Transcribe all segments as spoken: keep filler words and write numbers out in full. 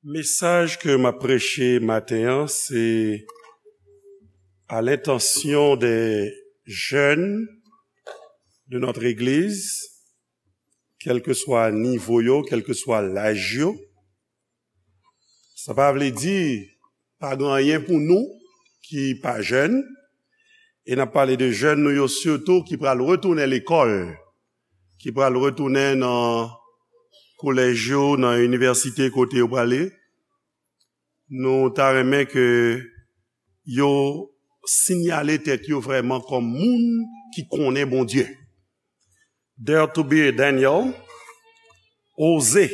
Mesaj ke m ap preche maten an, se à l'intention des jeunes de notre église, kèlkeswa nivo yo, kèlkeswa laj yo. Sa pa vle di pa gen anyen pou nou ki pa jèn, e n ap pale de jèn nou yo sitou ki pral retounen lekòl, ki pral retounen nan kolèj yo, nan inivèsite kote yo prale. Nou ta renmen ke yo sinyale tèt yo vrèman kòm moun ki konnen Bondye. Dare to be a Daniel, oze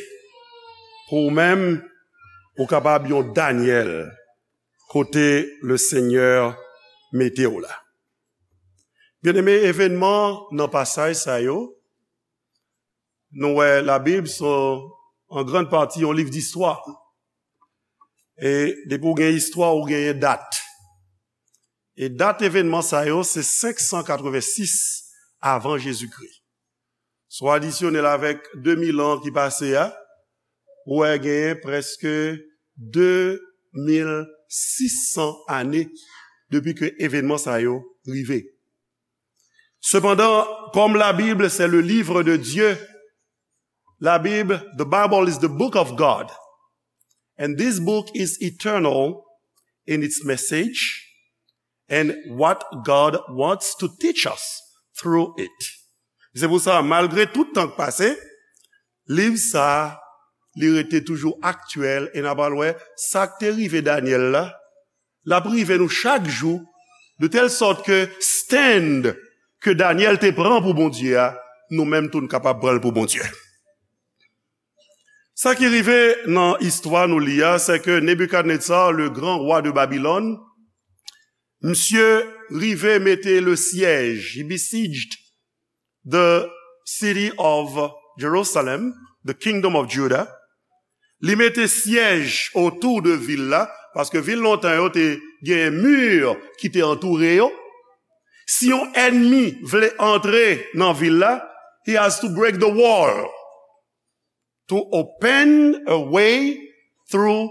pou ou menm ou kapab yon Daniel kote Lesenyè mete w la. Byeneme, evènman nan pasaj sa yo, nou wè Labib se an grann pati yon liv distwa. E depi w gen istwa, ou genyen dat. E dat evènman sa yo se senk san katrevensis avan Jezikri. Si w adisyone l avèk de mil an ki pase a, ou wè genyen prèske de mil sis san ane depi ke evènman sa yo rive. Sepandan, comme la Bible, c'est le livre de Dieu, la Bible, the Bible is the book of God. And this book is eternal in its message and what God wants to teach us through it. Se pou sa, malgre tout tan k pase, liv sa a, li rete toujou aktyèl, e n a pral wè sa k te rive Danyèl la, l ap rive nou chak jou, de tèl sòt ke stand ke Danyèl te pran pou Bondye a, nou menm tou n kapab pran l pou Bondye. Sa ki rive nan istwa nou li a, se ke Nebikadnetza, le grand roi de Babylone, misye rive mete le siège, he besieged the city of Jerusalem, the kingdom of Judah. Li mete syèj otou de vil la, paske vil lontan yo te gen mi ki te antoure yo. Si yon ènmi vle antre nan vil la, he has to break the wall to open a way through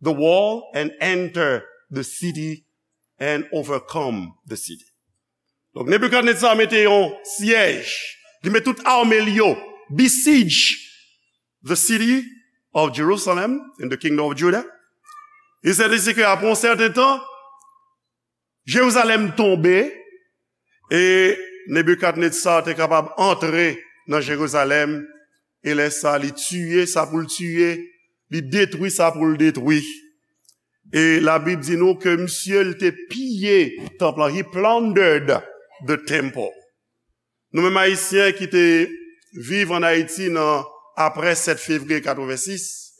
the wall and enter the city and overcome the city. Donk, Nebikadnetza mete yon syèj, li met tout ame l yo, besiege the city of Jerusalem in the kingdom of Judah. E se te si ke apre yon sèten tan, Jerizalèm tonbe, e Nebikadnetza te kapab antre nan Jerizalèm, e lè sa, li tiye sa pou l tiye, li detwi sa pou l detwi. E Labib di nou ke misye, l te piye tanp lan. He plundered the temple. Nou menm Ayisyen ki te viv ann Ayiti nan apre sèt fevriye katrevensis,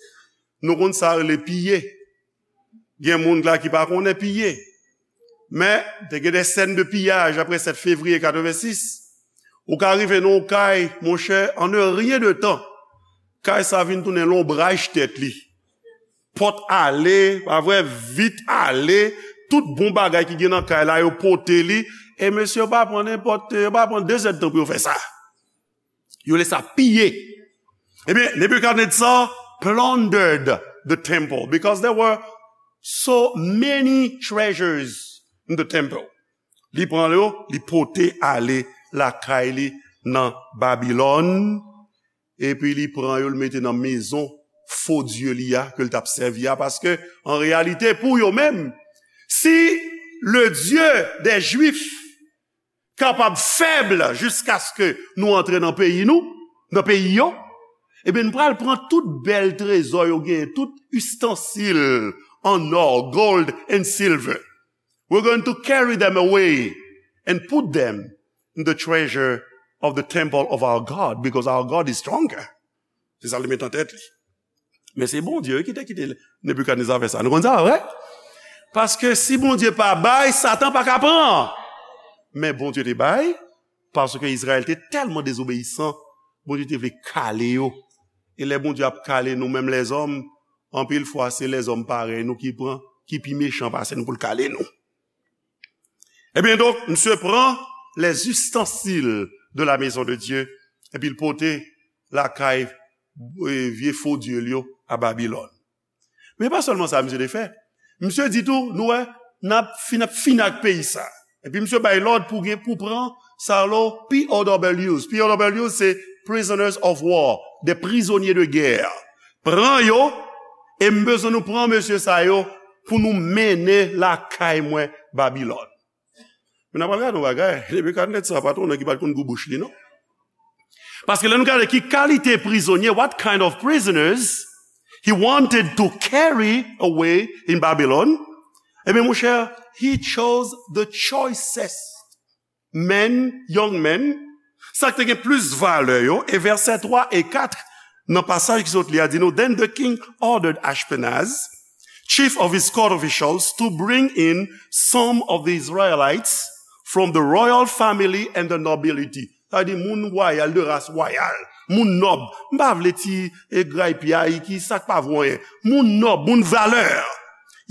nou konn sa rele piye. Gen moun la ki pa konnen piye. Men, te gen de sèn de piyaj apre sèt fevriye katrevensis. Ou ka rive nan yon kay, monchè, en un rien de temps, kay sa vin tounen lonbraj tèt li. Pòt ale, pa vre, vit ale, tout bon bagay ki gen nan kay la, yo pote li. E mesye, yo pa pran nenpòt, yo pa pran de zèdtan pou yo fè sa. Yo lè sa piye. Ebyen, Nebuchadnezzar plundered the temple because there were so many treasures in the temple. Li pran yo, li pote ale lakay li nan Babilòn, epi li pran yo, li mete nan mezon fo dye li a, ke l t ap sèvi a, paske, an reyalite, pou yo menm, si le Dieu des Juifs kapab fèb jiskaske nou antre nan peyi nou, nan peyi yo, ebyen, n pral pran tout bèl trezò yo genyen, tout ustensil an ò, gold and silver. We're going to carry them away and put them in the treasure of the temple of our God, because our God is stronger. Se sa li met an tèt li. Men se Bondye, wi, ki te kite Nebikadneza fè sa. Nou konn sa, vre? Paske si Bondye pa bay, Satan pa ka pran. Men Bondye te bay, paske Izrayèl te tèlman dezobeyisan, Bondye te vle kale yo. E lè Bondye ap kale nou menm lèzòm, anpil fwa se lèzòm parèy nou ki pran, ki pi mechan pase nou pou l kale nou. Ebyen donk, misye pran les ustensiles de la maison de Dieu, epi l pote lakay, e, vye fo dye l yo a Babilòn. Men pa sèlman sa misye te fè. Misye di tou, nou wè, n ap fin, ap fin ak peyi sa. Epi misye bay lòd pou gen, pou pran sa lo P O Ws. P O Ws se prisoners of war, des prisonniers de guerre. Pran yo, e m bezwen nou pran mesye sa yo pou nou mennen lakay mwen Babilòn. Men n ap gade yon bagay, Nebikadnetza pa t yon nèg ki pa t konn gou bouch li, non. Paske lè nou gade ki kalite prizonye, what kind of prisoners he wanted to carry away in Babylon, ebyen, monchè, he chose the choicest men, young men, sa k te gen plis valè yo, e vèsè twa e kat nan pasaj ki sot li a di nou, Then the king ordered Ashpenaz, chief of his court officials, to bring in some of the Israelites from the royal family and the nobility. Sa vle di moun wayal, de ras wayal, moun nòb. M pa vle ti e gray pyay ki sa k pa vo anyen. Moun nòb, moun valè.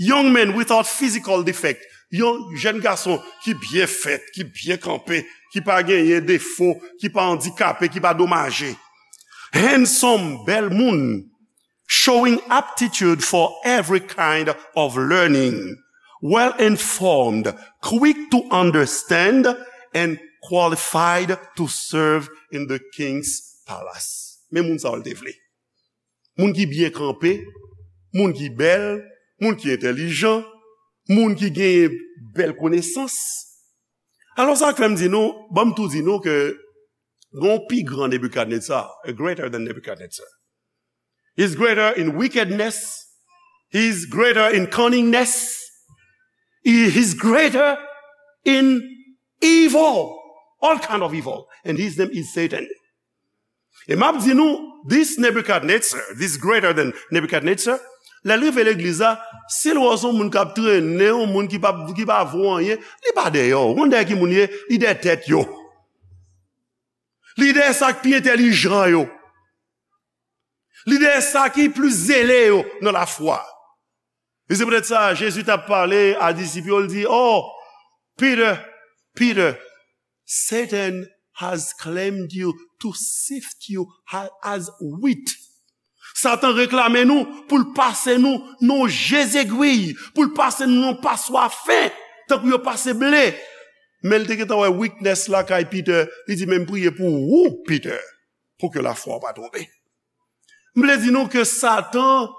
Young men without physical defect. Yon jèn gason ki byen fèt, ki byen kanpe, ki pa genyen defo, ki pa andikape, ki pa domaje. Handsome, bèl moun, showing aptitude for every kind of learning, well informed, quick to understand, and qualified to serve in the king's palace. Men moun sa yo l te vle. Moun ki byen kanpe, moun ki bèl, moun ki entèlijan, moun ki genyen bèl konesans. Alò, sa k fè m di nou, ban m tou di nou ke gen yon pi gran Nebikadnetza, a greater than Nebuchadnezzar. He's greater in wickedness. He's greater in cunningness. He, he's greater in evil. All kind of evil. And his name is Satan. E m ap di nou, this Nebuchadnezzar, this greater than Nebuchadnezzar, lè l rive legliz la, si l wè w se yon moun k ap trennen, yon moun ki pa, ki pa vo anyen, li pa dèyè w. Ou konn dèyè ki moun li ye? Li dèyè tèt yo. Li dèyè sa k pi entèlijan yo. Li dèyè sa ki plis zele yo nan lafwa. E se poutèt sa, Jezi t ap pale a disip yo, l di, Oh, Peter, Peter, Satan has claimed you to sift you ha-, as wheat. Satan reklame nou pou l pase nou nan je zegwi, pou l pase nou nan paswa fen, tankou yo pase ble. Men l te gentan wè weakness lakay Peter, li di, Men m priye pou ou, Peter, pou ke lafwa w pa twonpe. M vle di nou ke Satan,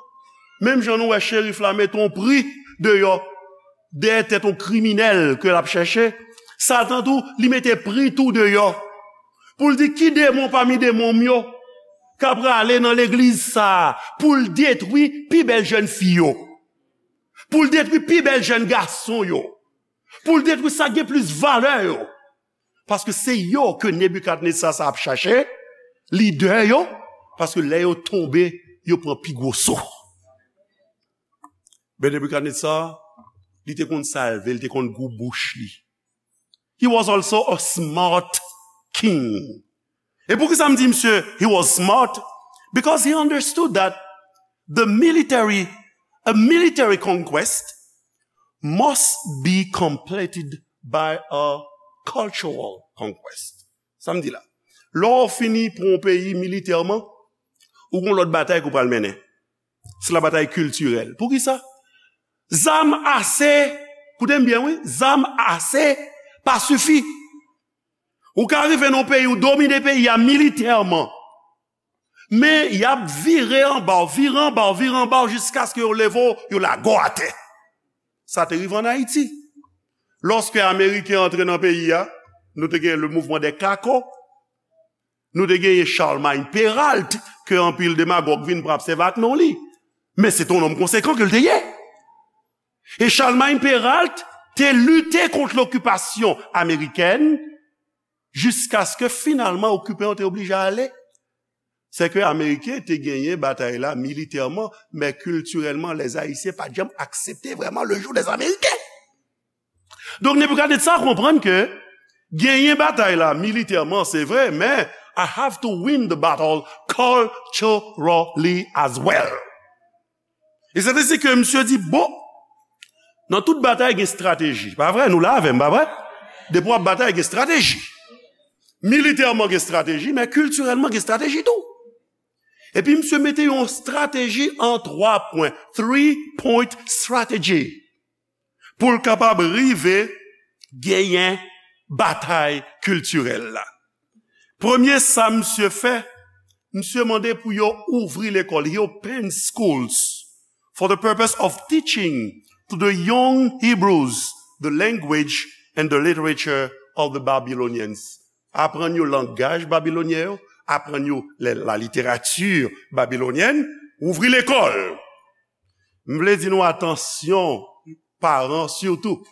menm jan nou wè cherif la mete yon pri deyò, dèyè tèt yon kriminèl ke l ap chèche, Satan tou, li mete pri tou deyò. Pou l di ki demon pami demon m yo k ap prale nan legliz sa a, pou l detwi pi bèl jèn fi yo, pou l detwi pi bèl jèn gason yo, pou l detwi sa k gen plis valè yo. Paske se yo ke Nebikadnetza sa ap chache, lidè yo, paske lè yo tonbe, yo pran pi gwo so. Men Nebikadnetza, li te konn salve, li te konn gou bouch li. He was also a smart king. E poukisa m di misye, he was smart? Because he understood that the military, a military conquest must be completed by a cultural conquest. Sa m di la. Lè w fini pran yon peyi militèman, ou gon lòt batay ke w pral mennen. Se la batay kiltirèl. Poukisa? Zam ase, koute m byen wi, zam ase pa sifi. Ou ka rive nan yon peyi, ou domine peyi a militèman. Men y ap vire anba w, vire anba w, vire anba w jiskaske yo leve w, yo lage w atè. Sa te rive ann Ayiti. Lòske Ameriken antre nan peyi a, nou te gen le mouvement des Cacos, nou te genyen Charlemagne Péralte, ke anpil demagòg vin pran ap sèvi ak non li. Men se te yon nonm konsekan ke l te ye. E Charlemagne Péralte te lite kont lokipasyon amerikèn jiskaske finalman okipan yo te oblije ale. Se ke Ameriken te genyen batay la militèman, men kiltirèlman, lèzayisyen pa t janm aksepte vrèman le joug dèzameriken. Donk, Nebikadnetza konprann ke genyen batay la militèman, se vre, men I have to win the battle culturally as well. E se te si ke misye di, bon, nan tout batay gen estrateji. Pa vre? Nou la avè m, pa vre? Depi w ap batay, gen estrateji. Militèman gen estrateji, men kiltirèlman gen estrateji tou. Epi misye mete yon strateji an twa pwen, three point strategy, pou l kapab rive genyen batay kiltirèl la. Premye sa misye fè, misye mande pou yo ouvri lekòl. He opened schools for the purpose of teaching to the young Hebrews the language and the literature of the Babylonians. Aprann yo langaj babilonyen yo, aprann yo la, la littérature babylonienne, ouvri lekòl. M vle di nou atansyon, paran sitou.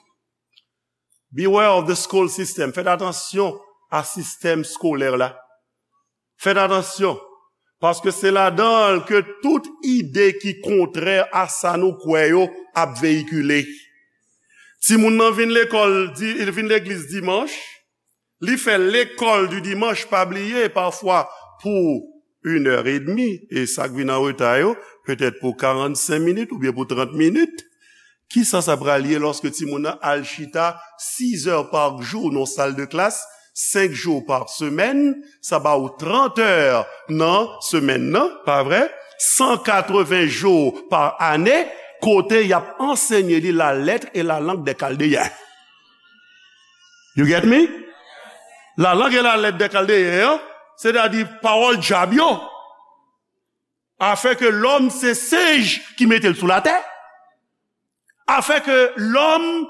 Beware of the school system. Fèt atansyon a sistèm skolè la. Fèt atansyon, paske se ladan l ke tout ide ki kontrè a sa nou kwè yo ap veyikile. Timoun nan vin lekòl, di, vin legliz dimanch, li fè lekòl di dimanch, pa bliye, pafwa pou une heure et demie, e sa k vin an reta yo, petèt pou karannsenk minit oubyen pou trant minit. Kisa sa pral ye lòske timoun nan al chita sis è pa jou nan sal de klas, senk jou pa semèn, sa ba ou trant è nan semèn nan, pa vre? San katreven jou pa ane, kote y ap ansenye li la lettre et la langue des Chaldéens. You get me? La langue et la lettre des Chaldéens, sètadi pawòl dyab yo. Afin que l'homme se singe qui mete l sou latè. Afin que l'homme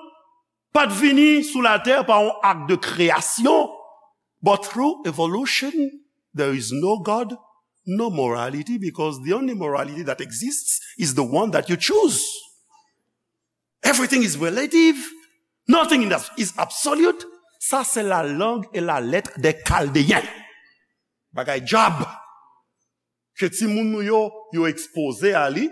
pa t vini sou latè pa yon ak de kreyasyon, but through evolution, there is no God, no morality, because the only morality that exists is the one that you choose. Everything is relative, nothing is absolute. Sa se la langue et la lettre des Chaldéens. Bagay dyab. Ke timoun nou yo, yo ekspoze a li.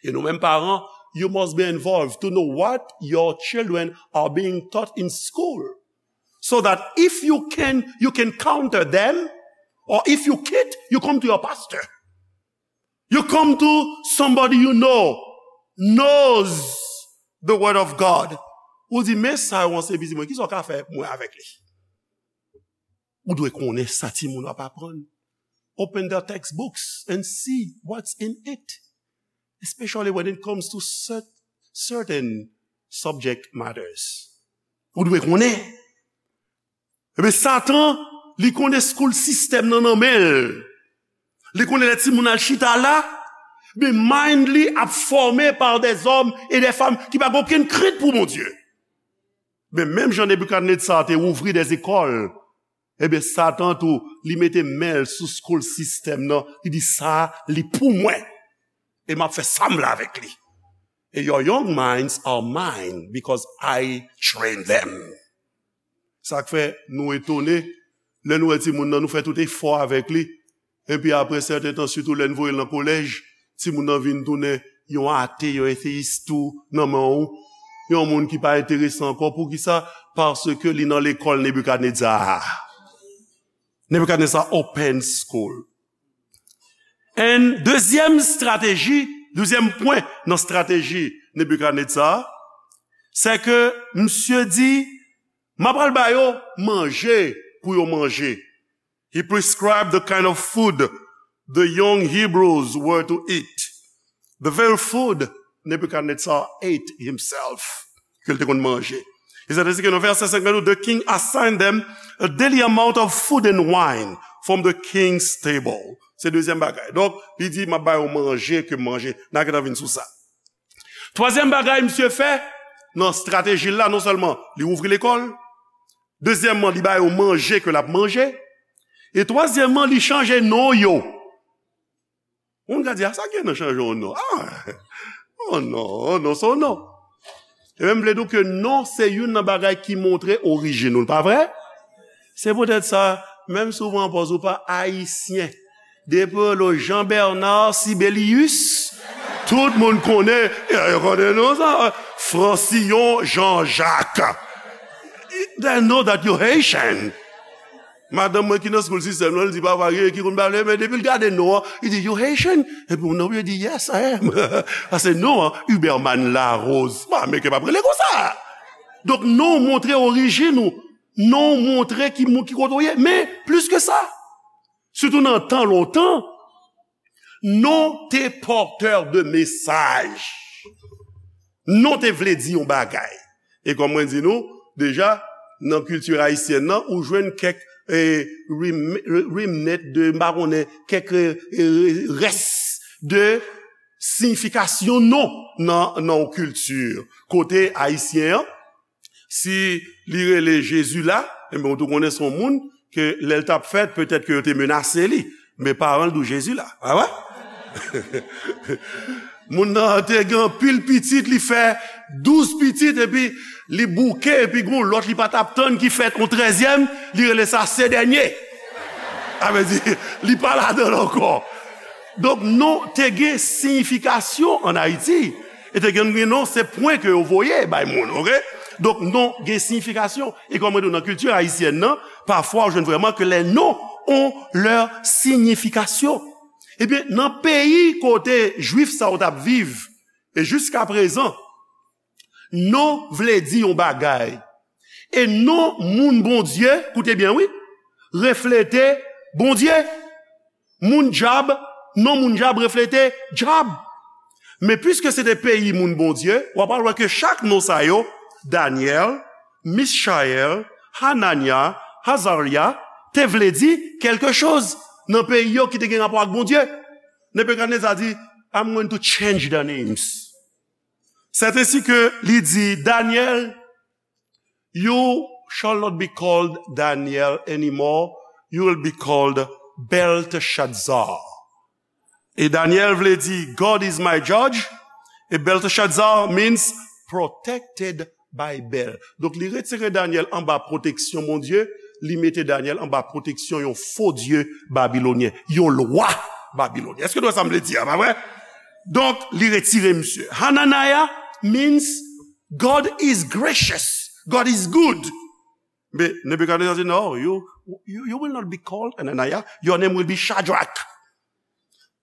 E nou menm paran, you must be involved to know what your children are being taught in school. So that if you can, you can counter them, or if you can't, you come to your pastor. You come to somebody you know, knows the word of God. Ou di, men sa yo an se pitit mwen, kisa w ka fè mwen avèk li? Ou dwe konnen sa timoun w ap aprann. Open their textbooks and see what's in it, especially when it comes to cer-, certain subject matters. Ou dwe konnen. Ebyen, Satan, li konnen school system nan nan men l. Li konnen lè timoun al chita la, men mind li ap fòme par des hommes et des femmes ki pa gen okenn krent pou Bondye. Men menm jan Nebikadnetza te ouvri des écoles, ebyen, Satan tou, li mete men l sou school system nan, li di, sa, li pou mwen. E m ap fè sa m vle avèk li. E your young minds are mine because I train them. Sa k fè nou etone, lè nou wè timoun nan, nou fè tout efò avèk li. Epi apre sèten tan, sitou lè n voye l nan kolèj, timoun nan vin tounen yon ate, yon eteyis tou nan men w. Yon moun ki pa enterese ankò. Poukisa? Paske li nan lekòl Nebikadnetza a. Nebikadnetza open school. And dezyèm strateji, dezyèm pwen nan strateji Nebikadnetza, se ke misye di, m ap al ba yo manje pou yo manje. He prescribed the kind of food the young Hebrews were to eat. The very food Nebuchadnezzar ate himself, ke l te konn manje. E sa te di ke nan vèsè senk la, the king assigned them a daily amount of food and wine from the king's table. Se dezyèm bagay. Donk, li di, m ap ba yo manje ke manje. N a gentan vin sou sa. Twazyèm bagay misye fè, nan estrateji l la, non sèlman li ouvri lekòl, dezyèmman, li ba yo manje ke l ap manje, e twazyèmman, li chanje non yo. Moun ka di, a, sa gen nan chanje yon non? A, oh non, oh non, se yon non. E menm vle di w ke non se youn nan bagay ki montre orijin ou, pa vre? Se poutèt sa, menm si w pran pòz ou pa ayisyen, depi w rele w Jean Bernard Sibelius, tout moun konnen, e, yo konnen non sa, Francillon Jean-Jacques. They know that you Haitian. Madanm mwen ki nan school system nan, li di, papa, gen ki konn pale, men depi l gade non an, li di, you Haitian? Epi moun nan di, yes, I am. Paske non an, Huberman Larose. Bon, Ameriken p ap rele konsa. Donk, non montre orijin ou. Non montre ki moun, ki kote w ye. Men, plis ke sa, sitou nan tan lontan, Non te pòtè de mesaj. Non te vle di yon bagay. E kòm mwen di nou, deja, nan kilti ayisyèn nan, ou jwenn kèk, eh, rem-, remnant de, m pa konnen, kèk, eh, rès de siyifikasyon non nan, nan yon kilti. Kote ayisyen an, si li rele Jezi la, enben, ou tou konnen se yon moun ke lè l t ap fèt, petèt ke yo te menase li. Men paran l di w Jezi la. A wè? Moun nan te gen anpil pitit, li fè douz pitit, epi li bouke, epi gon lòt li pa t ap tann ki fèt, yon trèzyèm, li rele sa se dènye. Sa vle di, li pa ladan l ankò. Donk, non te gen siyifikasyon ann Ayiti. E te gen, gen non, se pwen ke yo voye bay moun, oke? Donk, non gen siyifikasyon. E kòm mwen di w, nan kilti ayisyèn nan, pafwa, ou jwenn vrèman ke les noms ont leur signification. Ebyen, nan peyi kote Jwif sa yo t ap viv, e jiska prezan, non vle di yon bagay. E non moun Bondye, koute byen wi, reflete Bondye. Moun dyab, non moun dyab reflete dyab. Men piske se te peyi moun Bondye, w ap al wè ke chak non sa yo, Danyèl, Michayèl, Hananya, Azarya, te vle di kèlke choz nan peyi yo ki te gen rapò ak Bondye. Nebikadneza di, "I'm going to change the names." C'est ainsi que li di, Daniel, you shall not be called Daniel anymore, you will be called Belteshazzar. E Daniel vle di, "God is my judge." E Belteshazzar means protected by Bel. Donk, li retire Daniel anba pwoteksyon Bondye, li mete Daniel anba pwoteksyon yon fo dye babilonyen, yon lwa babilonyen. Èske nou wè sa m vle di a, pa vre? Donk, li retire misye. Hananiah means God is gracious, God is good. Men Nebikadneza di, "No, you, you, you will not be called Hananiah, your name will be Shadrach."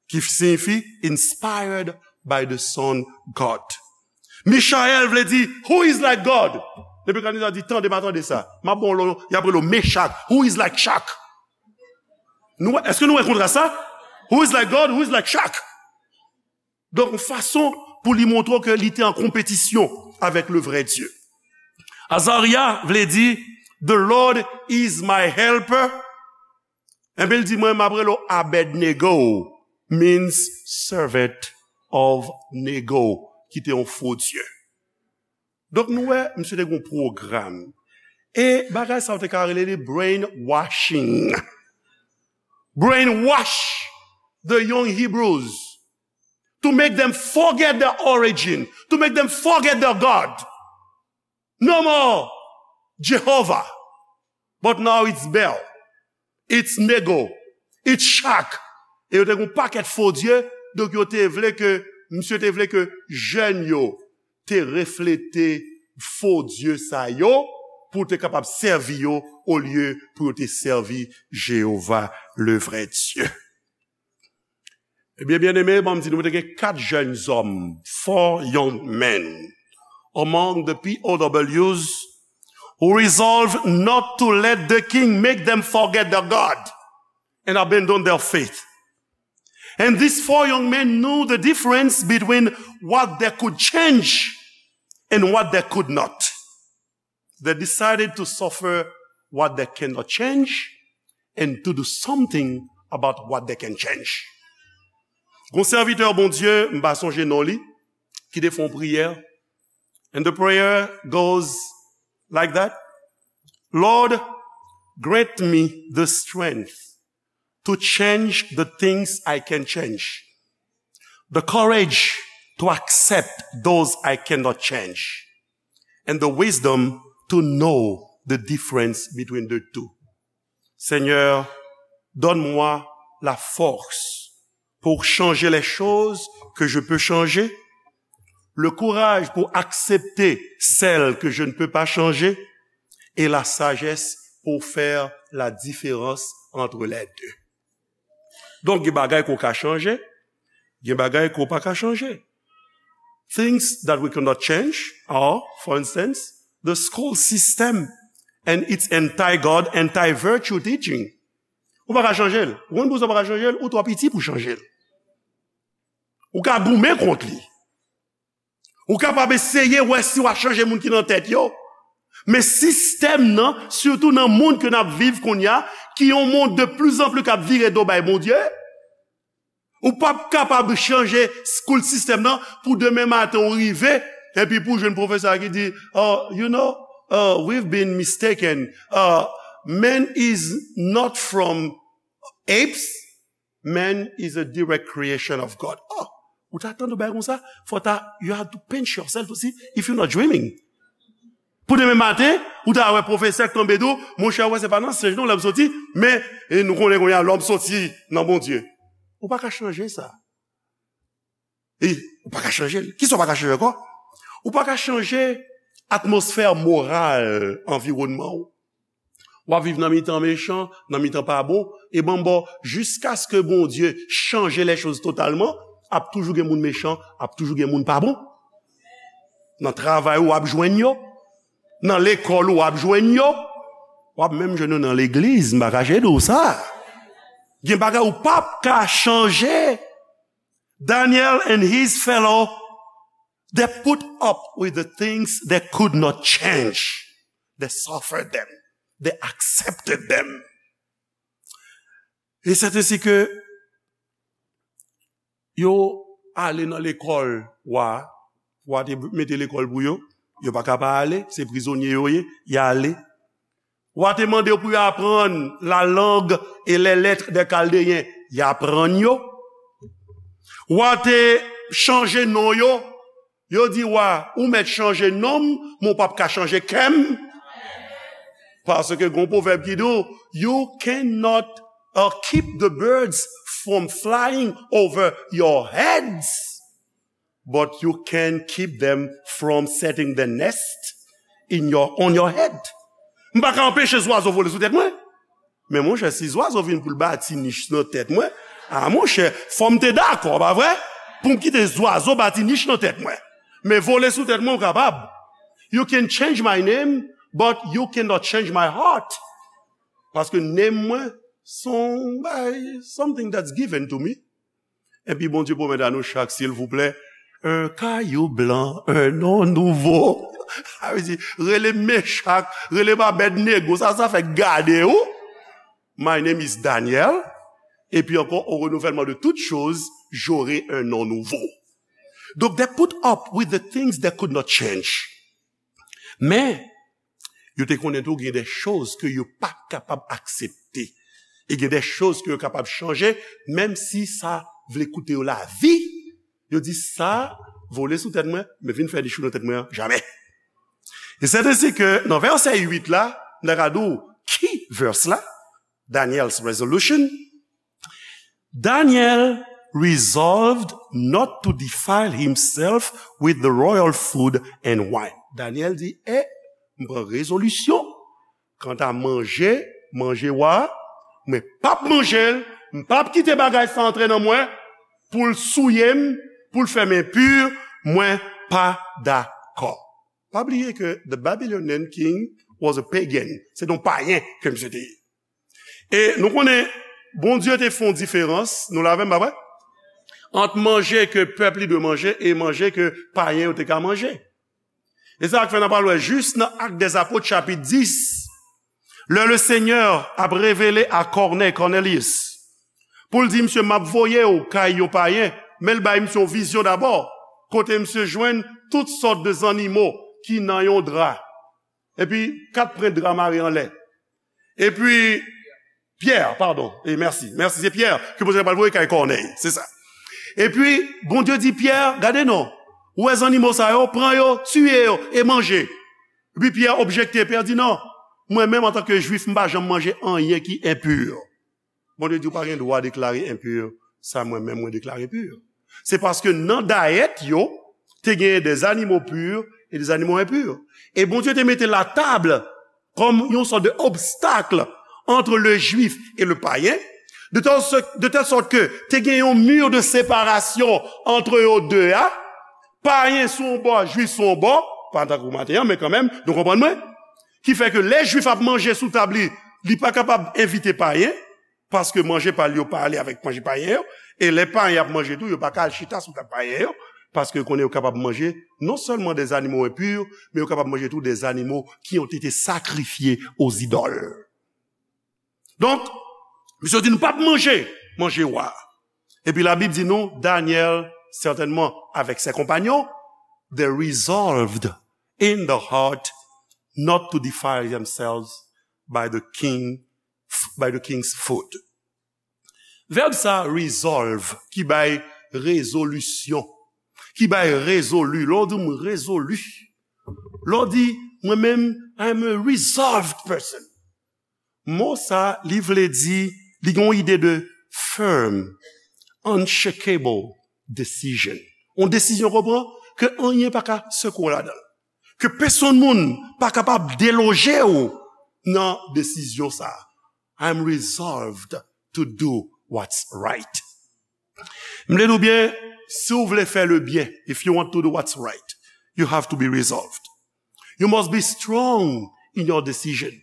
Ki siyifi inspired by the Son God. Michayèl vle di, "Who is like God?" Nebikadneza di, "Tande, m a tande sa. M a bon lo, y ap rele Mechak. Who is like Shak?" Nou, èske nou wè kontras sa? "Who is like God? Who is like Shak?" Donk, yon fason pou li montre ke li te an konpetisyon avèk le vrai Dieu. Azarya vle di, "The Lord is my helper." Enben, l di, "Mwen, m ap rele w Abednego," means servant of Nego, ki te yon fo dye. Donk, nou wè, misye te gen yon pwogram. E bagay sa, yo te ka rele li brainwashing. Brainwash the young Hebrews to make them forget their origin, to make them forget their God. No more Jehovah, but now it's Bel, it's Nego, it's Shak. E yo te gen yon pakèt fo dye, donk yo te vle ke, misye te vle ke jèn yo te reflete fo dye sa yo, pou te kapab sèvi yo, olye pou yo te sèvi Jewova, le vrai Dieu. Ebyen, byeneme, ban m di nou, te gen kat jèn zòm, four young men, among the P O Ws, who resolved not to let the king make them forget their God and abandon their faith. And these four young men knew the difference between what they could change and what they could not. They decided to suffer what they cannot change and to do something about what they can change. Gon sèvitè Bondye, m pa sonje non li, ki te fè yon priyè. And the prayer goes like that. "Lord, grant me the strength to change the things I can change, the courage to accept those I cannot change, and the wisdom to know the difference between the two." Seigneur, donne-moi la force pour changer les choses que je peux changer, le courage pour accepter celles que je ne peux pas changer, et la sagesse pour faire la différence entre les deux. Donk, gen bagay ke w ka chanje, gen bagay ke w pa ka chanje. Things that we cannot change are, for instance, the school system and its anti-God, anti-virtue teaching. Ou pa ka chanje l. Ou konn poukisa w pa ka chanje l? Ou twò piti pou chanje l. Ou ka goumen kont li. Ou kapab eseye wè si w a chanje moun ki nan tèt yo. Men sistèm nan, sitou nan mond ke n ap viv kounye a, ki yon mond de plus en plus k ap vire do bay Bondye, ou p ap kapab chanje school system nan pou demen maten ou rive, epi pou jwenn pwofesè ki di, "Oh, you know, uh, we've been mistaken. Uh, man is not from apes. Man is a direct creation of God." Oh, ou ta tande yon bagay konsa, fò ta, you have to pinch yourself to see if you're not dreaming. Pou demen maten, ou ta wè pwofesè k tonbe di w, "Monchè, wè, se pa nan senj non lòm soti, men, e, nou konnen kounye a lòm soti nan Bondye." Ou pa ka chanje sa. E, ou pa ka chanje l. Kisa w pa ka chanje ankò? Ou pa ka chanje atmosfè moral anviwònman w. W ap viv nan mitan mechan, nan mitan pa bon, e ban m ba w, jiskaske Bondye chanje les choses totalman, ap toujou gen moun mechan, ap toujou gen moun pa bon. Nan travay ou, w ap jwenn yo. Nan lekòl ou, w ap jwenn yo. W ap menm jwenn yo nan legliz, m pa kache di w sa. Gen bagay ou p ap ka chanje. Daniel and his fellow, they put up with the things they could not change. They suffered them. They accepted them. E c'est ainsi que yo ale nan lekòl wa, wa te mete lekòl pou yo, yo pa ka pa ale, se prizonye yo ye, y ale. Wa te mande yo pou yo aprann la langue et les lettres des Chaldéens, y aprann yo. Wa te chanje non yo, yo di wa, ou mèt chanje non m, men w p ap ka chanje kè m. Paske gen yon pwovèb ki di w, "You cannot, uh, keep the birds from flying over your heads, but you can keep them from setting the nest in your, on your head." M pa ka anpeche zwazo vole sou tèt mwen. Men monchè, si zwazo vin pou l bati nich nan tèt mwen, a monchè, fò m te dakò, pa vre? Pou m kite zwazo bati nich nan tèt mwen. Men vole sou tèt mwen, ou kapab. You can change my name, but you cannot change my heart. Paske name mwen, se yon bagay, something that's given to me. Epi Bondye pwomèt a nou chak, silvouplè, un caillou blanc, un nom nouveau. Sa vle di, rele m Mechak, rele m Abèdnego, sa, sa fè gade ou. My name is Daniel. Epi ankò, au renouvellement de toutes choses, j'aurai un nom nouveau. Donk, they put up with the things they could not change. Men, yo te konnen tou gen de choz ke yo pa kapab aksepte. E gen de choz ke yo kapab chanje, menm si sa vle koute yo lavi. Yo di sa, vole sou tèt mwen, men vin fè nich ou nan tèt mwen an, jamè. E c'est ainsi que, nan vèsè uit la, m ta ka di w ki vèsè la, Daniel's resolution. Daniel resolved not to defile himself with the royal food and wine. Daniel di, eh, m pran rezolisyon. Kanta manje, manje wa, mwen p ap manje l, m p ap kite bagay sa antre nan mwen, pou l souye m, pou l fè m enpi, mwen pa dakò. Pa bliye ke the Babylonian king was a pagan. Se yon payen ke misye te ye. E nou konnen, Bondye te fè yon diferans, nou la avè m, pa vre? Ant manje ke pèp li dwe manje e manje ke payen yo te ka manje. E sa k fè n ap al wè jis nan Actes des Apôtres, chapit dis, lè le Senyè ap revele a Kònèy, Cornelius, pou l di, "Misye, m ap voye w kay yon payen," men l bay misye yon vizyon dabò, kote misye jwenn tout sòt de zannimo ki nan yon dra. Epi, kat pren dra mare anlè. Epi, Pyè, padon, e mèsi, mèsi, se Pyè ke Bondye pral voye kay Kònèy, se sa. Epi, Bondye di Pyè, "Gade non, ou wè zannimo sa yo, pran yo, tiye yo, e manje." Epi Pyè objekte, Pyè di, "Non, mwen menm antanke Jwif, m pa janm manje anyen ki enpi." Bondye di, "Ou pa gen dwa deklare enpi sa mwen menm mwen deklare pi." Se paske nan dayèt yo, te genyen des animaux purs et des animaux impurs. E Bondye te mete la table comme yon sòt de obstacle entre le juif et le païen, de telle, de telle sorte que te gen yon mur de séparation entre yo de a, payen sou yon bò, jwif sou yon bò, pa tankou maten an, men kanmenm, nou konprann mwen, ki fè ke lè jwif ap manje sou tab li, li pa kapab envite payen, Paske manje pa l yo pa ale avèk manje payen yo, e lè payen ap manje tou, yo pa ka al chita sou tab payen yo, paske yo konnen yo kapab manje non sèlman des animaux impurs, men yo kapab manje tou des animaux qui ont été sacrifiés aux idoles. Donk, misye di nou p ap manje manje wa. Epi Labib di nou, Daniel, sètènman avèk ses compagnons, they resolved in the heart not to defile themselves by the king, by the king's food. Vèb sa, resolve, ki bay rezolisyon, ki bay rezoli. Lè w di m rezoli, lè w di mwen menm, I'm a resolved person. Mo sa, li vle di, li gen yon ide de firm, unshakable decision. Yon desizyon, konpran, ke anyen pa ka sekwe w ladan l. Ke pèsonn moun pa kapab deloje w nan desizyon sa. I'm resolved to do what's right. M vle di w byen, si w vle fè le byen, if you want to do what's right, you have to be resolved. You must be strong in your decision.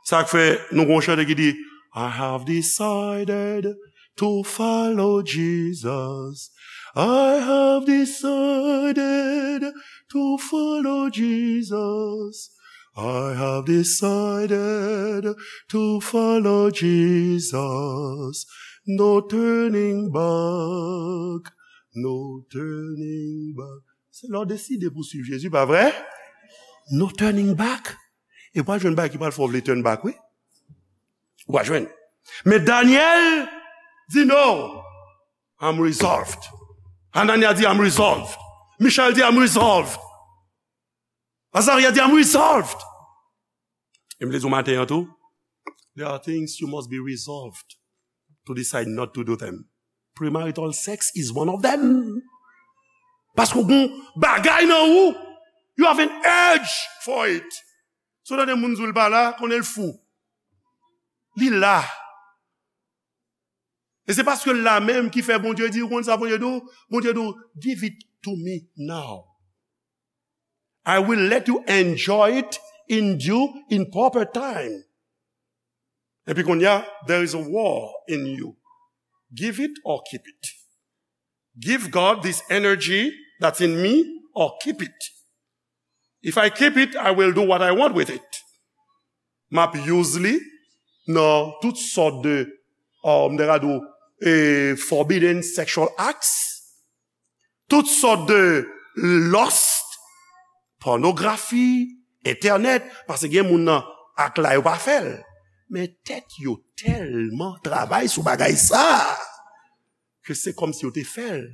Sa k fè nou gon chante ki di, I have decided to follow Jesus. I have decided to follow Jesus. I have decided to follow Jesus. No turning back. No turning back. Se lè w deside pou swiv Jezi, pa vre? No turning back. E pral jwenn bagay ki pral fè w vle turn back, wi. Ou pral jwenn. Men Daniel di no. I'm resolved. Anania di I'm resolved. Michel di I'm resolved. Azaria di I'm resolved. E m vle di w maten an tou, there are things you must be resolved to decide not to do them. Premarital sex is one of them. Paske w gon bagay nan ou, you have an urge for it. Si w tande moun di w l pa la, konnen l fou. Li la. E se paske l la menm ki fè Bondye di, ou konn sa Bondye di w? Bondye di w, give it to me now. I will let you enjoy it in due, in proper time. Epi kounye a, there is a war in you. Give it or keep it. Give God this energy that's in me or keep it. If I keep it, I will do what I want with it. M ap use li nan tout sòt de, um, m ta ka di w, eh, forbidden sexual acts, tout sòt de lust, pònografi, entènèt, paske gen moun nan ak la yo pa fè l. Men tèt yo tèlman travay sou bagay sa a, ke se kòmsi yo te fè l.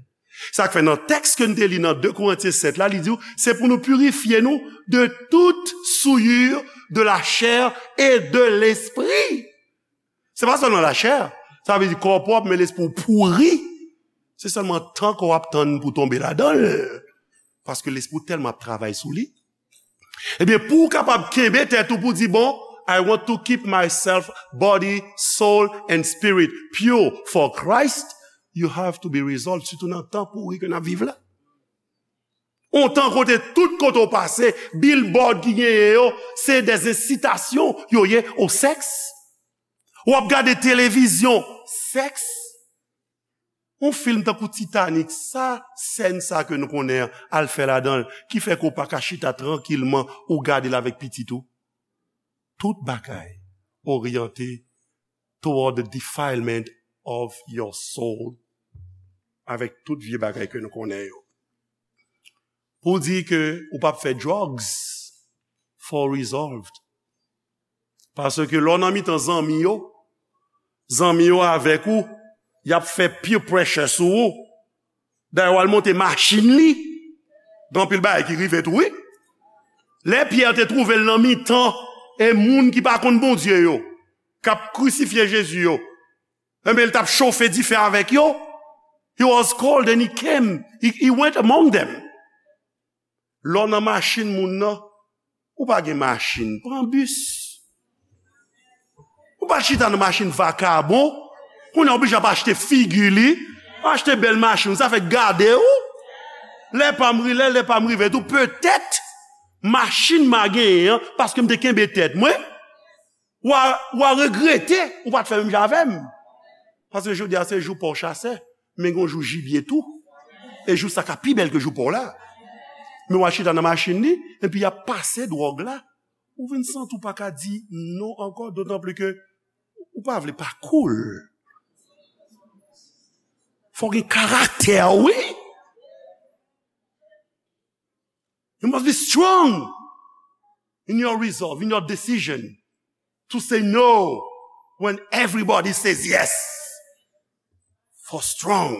Sa k fè nan tèks ke n te li nan de Korentyen sèt la, li di w, se pou nou pirifye nou de tout souillure de la chair et de l'esprit. Se pa sèlman lachè, sa vle di kò w pwòp, men lespri w pouri. Se sèlman tan ke w ap tann pou w tonbe ladan l. Paske lespri w tèlman ap travay sou li. Ebyen, pou w kapab kenbe tèt ou pou di, bon, I want to keep myself, body, soul and spirit pure for Christ, you have to be resolved, sitou nan tan pouri ke n ap viv la. On tan kote tout kote w pase, billboard ki genyen yo, se des incitations yo ye au sexe. W ap gade televizyon, sèks. On fim tankou Titanic, sa sèn sa ke nou konnen an, al fè ladan l, ki fè ke w pa ka chita trankilman, ou gade l avèk pitit ou. Tout bagay oryante toward the defilement of your soul, avèk tout vye bagay ke nou konnen yo. Pou di ke ou p ap fè drugs, fò w resolved. Paske lè w nan mitan zanmi yo, zanmi yo avèk ou, y ap fè peer pressure sou ou. Dayè, w al monte machin li, gen anpil bagay ki rive tou, wi. Lè Pyè te twouve l nan mitan, e moun ki pa konn Bondye yo, k ap krisifye Jezi yo, enben, l t ap chofe dife avèk yo. He was called and he came. He, he went among them. Lè w nan machin moun nan, ou pa gen machin, pran bis. Ou pa chita nan machin vakabon, kounye a oblije ap achte figi li, achte bèl machin, sa fè gade ou. Lè pa m ri, lè, lè pa m rive tou, petèt, machin m a genyen an, paske m te kenbe tèt mwen. W a, w a regrete ou pa t fè menm jan avè m. Paske jodi a se jou pa w chasè, men gen yon jou jibye tou. E jou sa ka pi bèl ke jou pa w la. Men w a chita nan machin li, epi y ap pase dwòg la. Ou vin santi w pa ka di non ankò, dotan pli ke ou pa vle pa cool. Fò w gen karaktè, wi. You must be strong in your resolve, in your decision to say no when everybody says yes. For strong.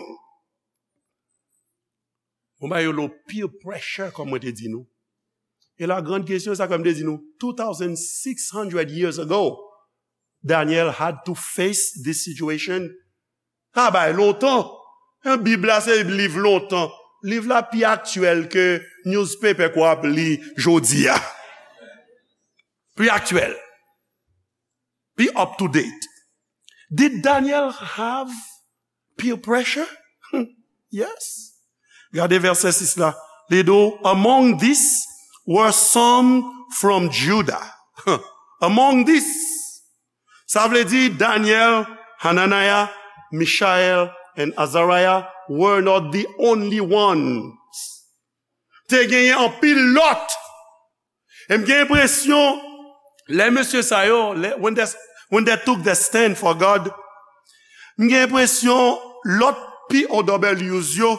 Bon, ba yo lo peer pressure, kòm mwen te di nou. E la grande question, sa kòm te di nou, two thousand six hundred years ago, Daniel had to face this situation. Sa bay lontan. Bib la se liv lontan. Liv la pi aktyèl ke newspaper ke w ap li jodi a. Pi aktyèl. Pi up to date. Did Daniel have peer pressure? Yes. Gade vèsè sis la. Li di w, among this were some from Judah. Among this. Sa vle di Daniel, Hananiah, Mishael, and Azariah were not the only ones. Te genyen anpil lòt. E m gen enpresyon, lè mesye sa yo, lè, when they, when they took the stand for God, m gen enpresyon lòt P O Ws yo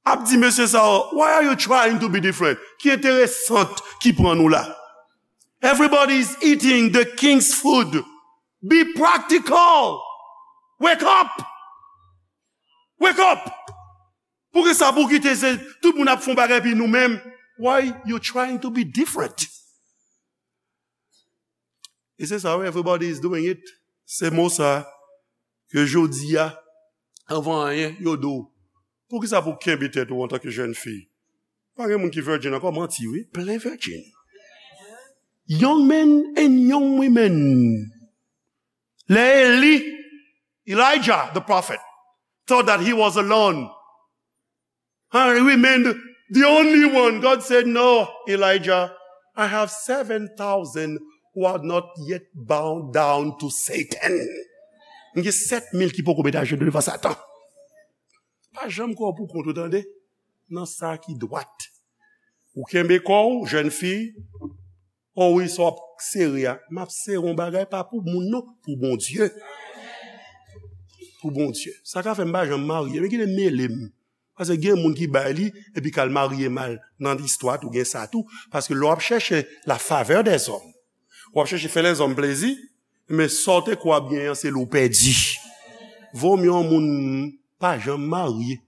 ap di mesye sa yo, "Why are you trying to be different?" Ki enteresan ki pran nou la? Everybody is eating the king's food. Be practical. Wake up. Wake up. Poukisa pou kite se tout moun ap fè yon bagay epi nou menm? Why you trying to be different? E se sa, wi, everybody is doing it. Se mo sa ke jodi a, anvan anyen, yo di w, poukisa pou kenbe tèt ou antanke jèn fi? Pa gen moun ki virgin ankò, manti, wi, plen virgin. Young men and young women. Lè Eli, Elijah, the prophet, thought that he was alone. And he remained the only one. God said, "No, Elijah, I have seven thousand who are not yet bowed down to Satan." M gen sèt mil ki poko met ajenou devan Satan. Pa janm kwè w pou kont ou, tande. Nan sa ki dwat. Ou kenbe kò w, jèn fi. O wi, sa w ap sere a. M ap sere yon bagay pa pou moun non, pou Bondye. Pou Bondye. Sa ka fè m pa janm marye. Men kite mele m. Paske gen moun ki bay li, epi k al marye mal. Nan istwa tou, gen sa tou. Paske lè w ap chèche la favè dèzòm, w ap chèche fè lèzòm plezi, men sa w te kwè w ap genyen an, se li w pèdi. Vomye yon moun pa janm marye,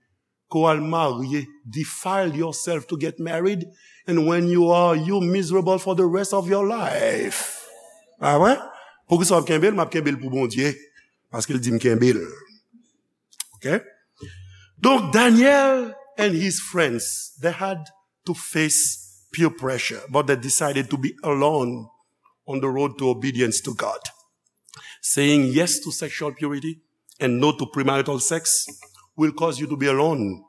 ke w al marye, defile yourself to get married, and when you are, you miserable for the rest of your life. Pa vre? Poukisa w ap kenbe l? M ap kenbe l pou Bondye, paske l di m kenbe l. Ok? Donk, Daniel and his friends, they had to face peer pressure, but they decided to be alone on the road to obedience to God. Saying yes to sexual purity and no to premarital sex will cause you to be alone.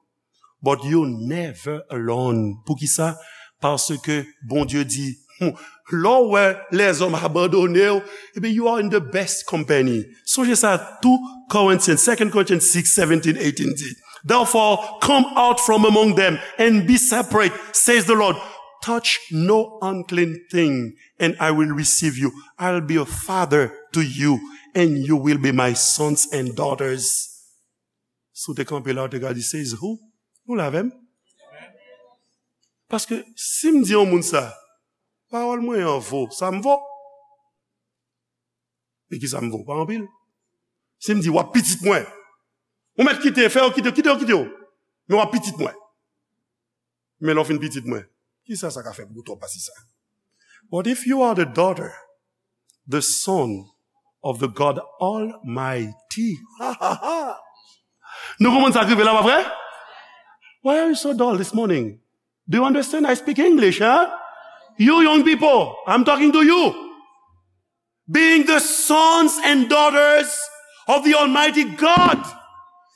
But you never alone. Poukisa? Paske Bondye di, hmm, lè w wè lèzòm abandone w, ebyen, you are in the best company. Sonje sa, two Corinthians, Second Corinthians six, seventeen, eighteen di, "Therefore, come out from among them and be separate, says the Lord. Touch no unclean thing, and I will receive you. I'll be a father to you, and you will be my sons and daughters." Si w te kanpe la, w te ka di, "Says who?" Nou la avè m? Paske si m di yon moun sa, pawòl mwen an vo, sa m vo? E ki sa m vo? Pa anpil. Si m di, "W ap pitit mwen," ou mèt kite, fè yo kite, kite yo, kite yo. Men w ap pitit mwen. Men lè w fin pitit mwen, kisa sa ka fè pou ou twòp pase sa? But if you are the daughter, the son of the God Almighty. Nou konprann sa k rive la, pa vre? Why are you so dull this morning? Do you understand? I speak English, huh? You young people, I'm talking to you. Being the sons and daughters of the Almighty God.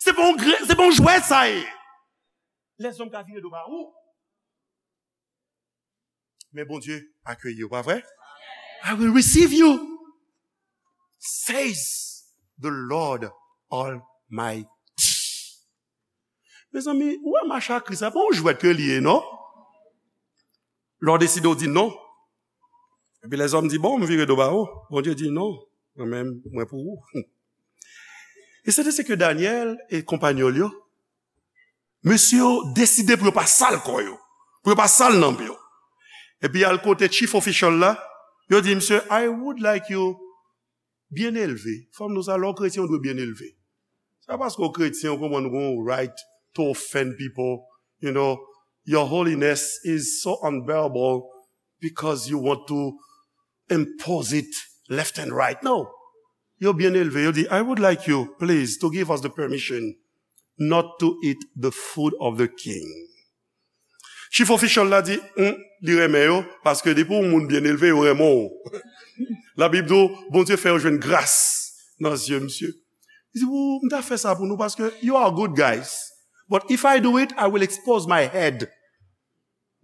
Se pa yon gre-, se pa yon jwèt sa ye. Lèzòm ka vire do ba ou. Men Bondye akeyi w, pa vre? "I will receive you." says the Lord Almighty. Mezanmi, ou wè mach a Kris la, pa yon jwèt ke li ye, non? Lè w deside w di non. Epi lèzòm di, bon, m vire do ba ou. Bondye di, non, mwen menm, mwen pou ou. E se de se ke Danyèl e konpayèl yo, mesye yo deside pou yo pa sal kò yo, pou yo pa sal nanm yo. Epi y al kote chief official la, yo di, misye, I would like you byen elve. Fanm nou sa, lè w kretyen, ou dwe byen elve. Se pa paske w kretyen, ou konprann ou gon right to offend people. You know, your holiness is so unbearable because you want to impose it left and right. No. Yo byen elve, yo di, I would like you, please, to give us the permission not to eat the food of the king. Chief official la di, hmm, li renmen yo, paske depi yon moun byen elve, yo renmen w. Labib di w, Bondye fè yo jwenn gras nan zye misye. Li di, ou, m ta fè sa pou nou, paske you are good guys. But if I do it, I will expose my head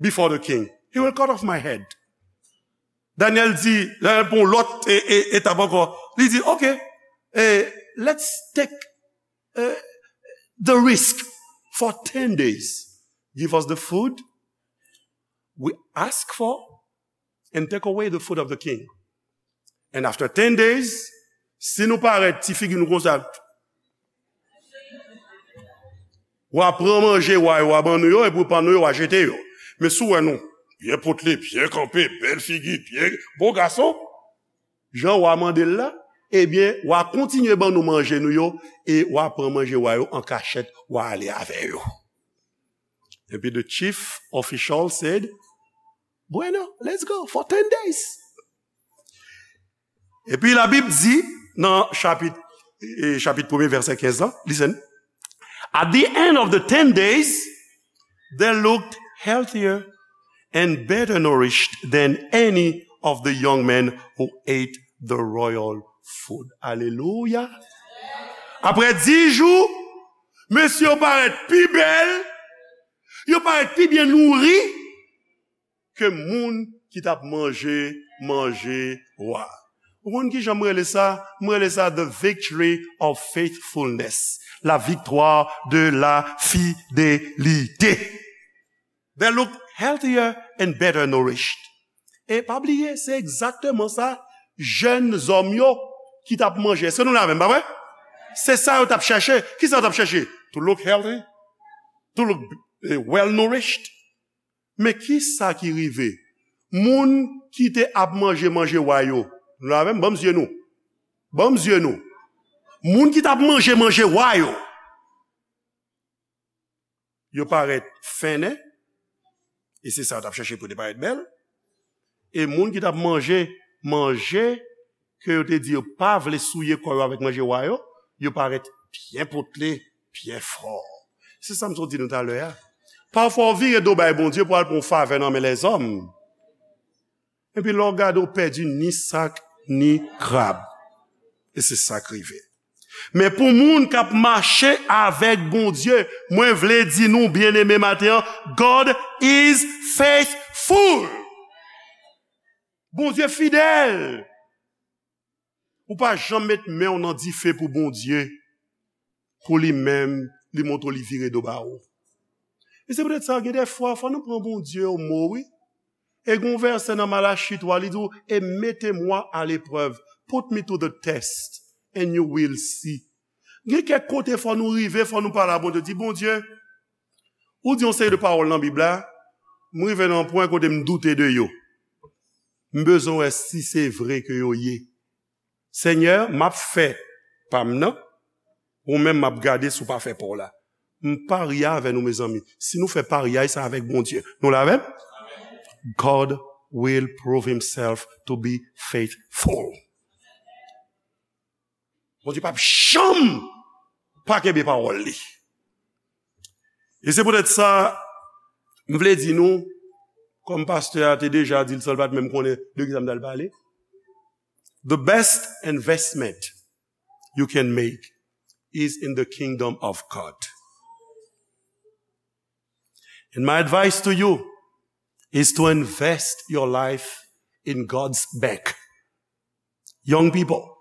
before the king. He will cut off my head. Daniel di, Daniel pran lòt e, e, etap ankò. Li di, ok, eh, let's take eh, the risk for ten days. Give us the food we ask for and take away the food of the king. And after ten days, si nou parèt, ti figi nou konsa, w a pran manje wa yo, w a ban nou yo, epi w pa nou yo, w a jete yo. Men si w wè nou byen potle, byen kanpe, bèl figi, byen bon gason, jan wa mande l la, ebyen, wa kontinye ban nou manje nou yo, e wa pran manje wa yo an kachèt, wa ale avè yo. Epi the chief official said, bueno, let's go for ten days. Epi Labib di nan chapit, eh, chapit premye, vèsè kenz la, listen. At the end of the ten days, they looked healthier and better nourished than any of the young men who ate the royal food. Alelouya. Apre dis jou, mesye yo parèt pi bèl, yo parèt pi byen nouri ke moun ki t ap manje manje wa. Ou konn ki jan m rele sa? M rele sa the victory of faithfulness. La victoire de la fidélité. They look healthier and better nourished. E pa bliye, se egzakteman sa jèn zòm yo ki t ap manje. Èske nou la menm, pa vre? Se sa yo t ap chèche. Ki sa yo t ap chèche? To look healthy, to look, eh, well nourished. Men ki sa ki rive? Moun ki te ap manje manje wa yo, nou la menm, ban m zye nou. Ban m zye nou. Moun ki t ap manje manje wa yo, yo parèt fennen, e se sa yo t ap chèche pou yo te parèt bèl. E moun ki t ap manje manje ke yo te di yo pa vle souye kò yo avèk manje wa yo, yo parèt byen potle, byen fò. Se sa m sot di nou talè a. Pafwa, w vire do bay Bondye pou al pran yon favè nan men lèzòm. Epi lè w gade, w pèdi ni sak, ni krab. E se sa k rive. Men pou moun k ap mache avèk Bondye, mwen vle di nou, byeneme, maten an, God is faithful. Bondye fidèl. Ou pa janm met men w nan dife pou Bondye, pou li menm, li montre w li vire do ba ou. E se poutèt sa, gen de fwa, fò nou pran Bondye o mo, wi. E gen yon vèsè nan Malachi twa, li di w, et mettez-moi à l'épreuve, put me to the test, and you will see. Gen kèk kote fò nou rive, fò nou pale a Bondye, di, Bondye, ou di yon seri de pawòl nan Bib la, m rive nan yon pwen kote m doute de yo. M bezwen wè si se vre ke yo ye. Senyè, m ap fè pa m nan, ou menm m ap gade si w pa fè pa w la. M parye avè nou, mezanmi. Si nou fè paryay sa avèk Bondye, nou la avè m? God will prove himself to be faithful. Bondye p ap janm pa kenbe pawòl li. E se poutèt sa, m vle di nou, kòm pastè a te deja di l san l pa t menm konnen de kisa m t al pale, the best investment you can make is in the kingdom of God. And my advice to you is to invest your life in God's bank. Young people,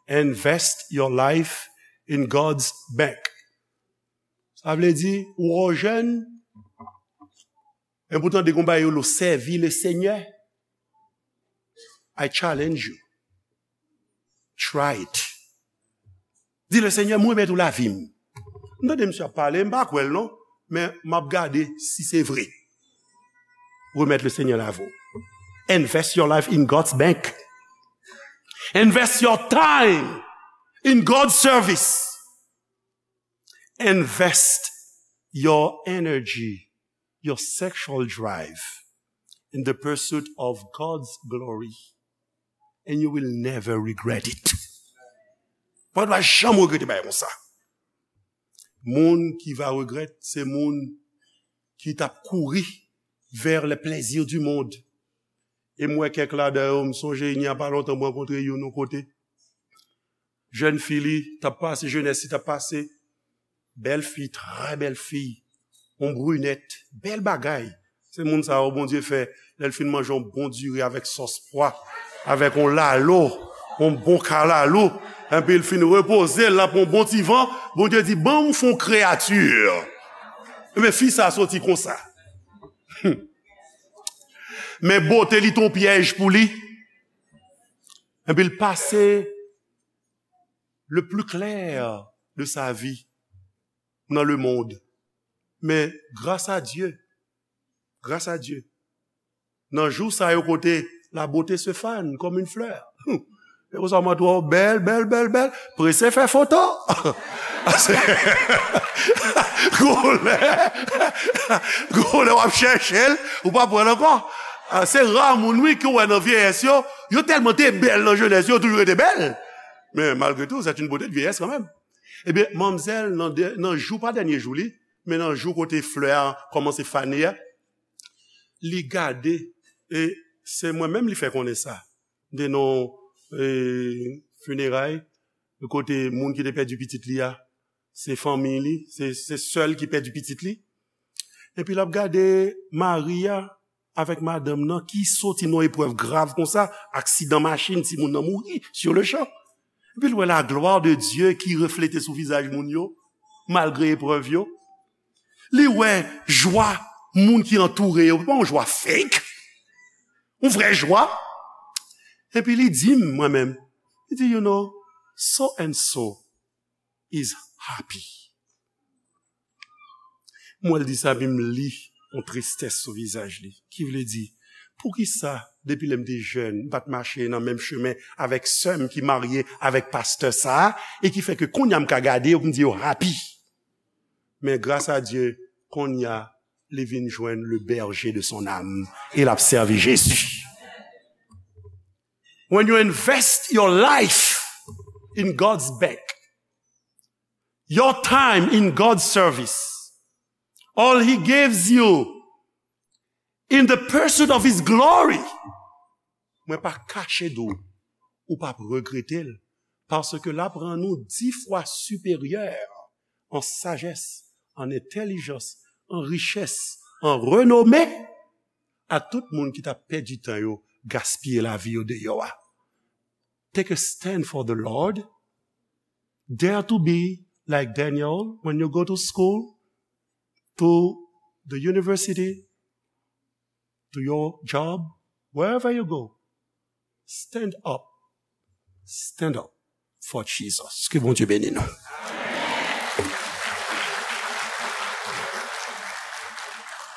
Invest your life in God's bank. Sa vle di, ou jèn, e poutan de konba yo lo sèvi le Senyè. I challenge you. Try it. Di le Senyè, mwen remèt ou lavi m. M tande misye ap pale, m pa kwè l non, men m ap gade si se vre. Remèt le Senyè lavi w. Invest your life in God's bank. Invest your time in God's service. Invest your energy, your sexual drive in the pursuit of God's glory, and you will never regret it. Ou pa janm regrete bagay konsa. Moun ki va regrèt, se moun ki t ap kouri vers les plaisirs du monde. E m wè kèk ladan yo, m sonje, il n'y a pas longtemps, m rankontre youn yon kote. Jèn fi li t ap pase, jenès li t ap pase. Bèl fi, trè bèl fi. Yon brinèt, bèl bagay. Se moun sa yo Bondye fè, lè l fin manje yon bon diri avèk sòs pwa, avèk yon lalo, yon bon kalalou, enpi l fin repoze, l ap yon bon ti van, Bondye di, ban m fè yon kreyati. Ebyen, fi sa soti konsa. Men bote li t on pyèj pou li. Enpi l pase le plus clair de sa vie dans le monde. Men gras a Dye, gras a Dye, nan jou sa yo kote la beauté se fane comme une fleur. E konsa mwen twò bèl, bèl, bèl, bèl, prese fè foto. Gwo lè, gwo lè w ap chèche l, ou pa pran l ankò. Ah, se ra moun wi ke w wè nan vyeyès yo, yo tèlman te bèl nan jenès yo, yo toujou rete bèl. Men malgre tou, c'est une beauté de vieillesse quand même. Ebyen, manmzèl, nan, nan jou, pa dènye jou li, men nan jou kote flè a kòmanse fane a, li gade, e se mwen menm li fè konnen sa. M te nan, e, fineray, kote moun ki te pèdi pitit li a, se fanmi li, se, se sè l ki pèdi pitit li. Epi l ap gade mari a, avèk madanm nan ki soti nan eprèv grav konsa, aksidan machin, timoun nan mouri sur le champ. Epi l wè la gloire de Dieu ki reflete sou vizaj moun yo, malgre eprèv yo. Li wè jwa moun ki antoure yo, pa yon jwa fake, yon vrè jwa. Epi li di m, mwen menm, li di, you know, so and so is happy. Mwen, l di sa, epi m li yon tristès sou vizaj li. Ki vle di, poukisa, depi lè m te jèn, m pa t mache nan menm chemen avèk sè m ki marye avèk pastè sa a, e ki fè ke kounye a m ka gade yo, pou m di yo happy. Men gras a Dye, kounye a, li vin jwenn le berger de son âme, e l ap sèvi Jezi. When you invest your life in God's bank, your time in God's service, all He gives you in the pursuit of His glory, mwen pa kache di w, ou p ap regrete l, paske l ap rann ou dis fwa siperyè an sajès, an entèlijans, an richès, an renome a tout moun ki t ap pèdi tan yo, gaspiye lavi yo deyò a. Take a stand for the Lord. Dare to be like Daniel when you go to school, to the university, to your job, wherever you go. Stand up. Stand up for Jesus. Ke Bondye beni nou.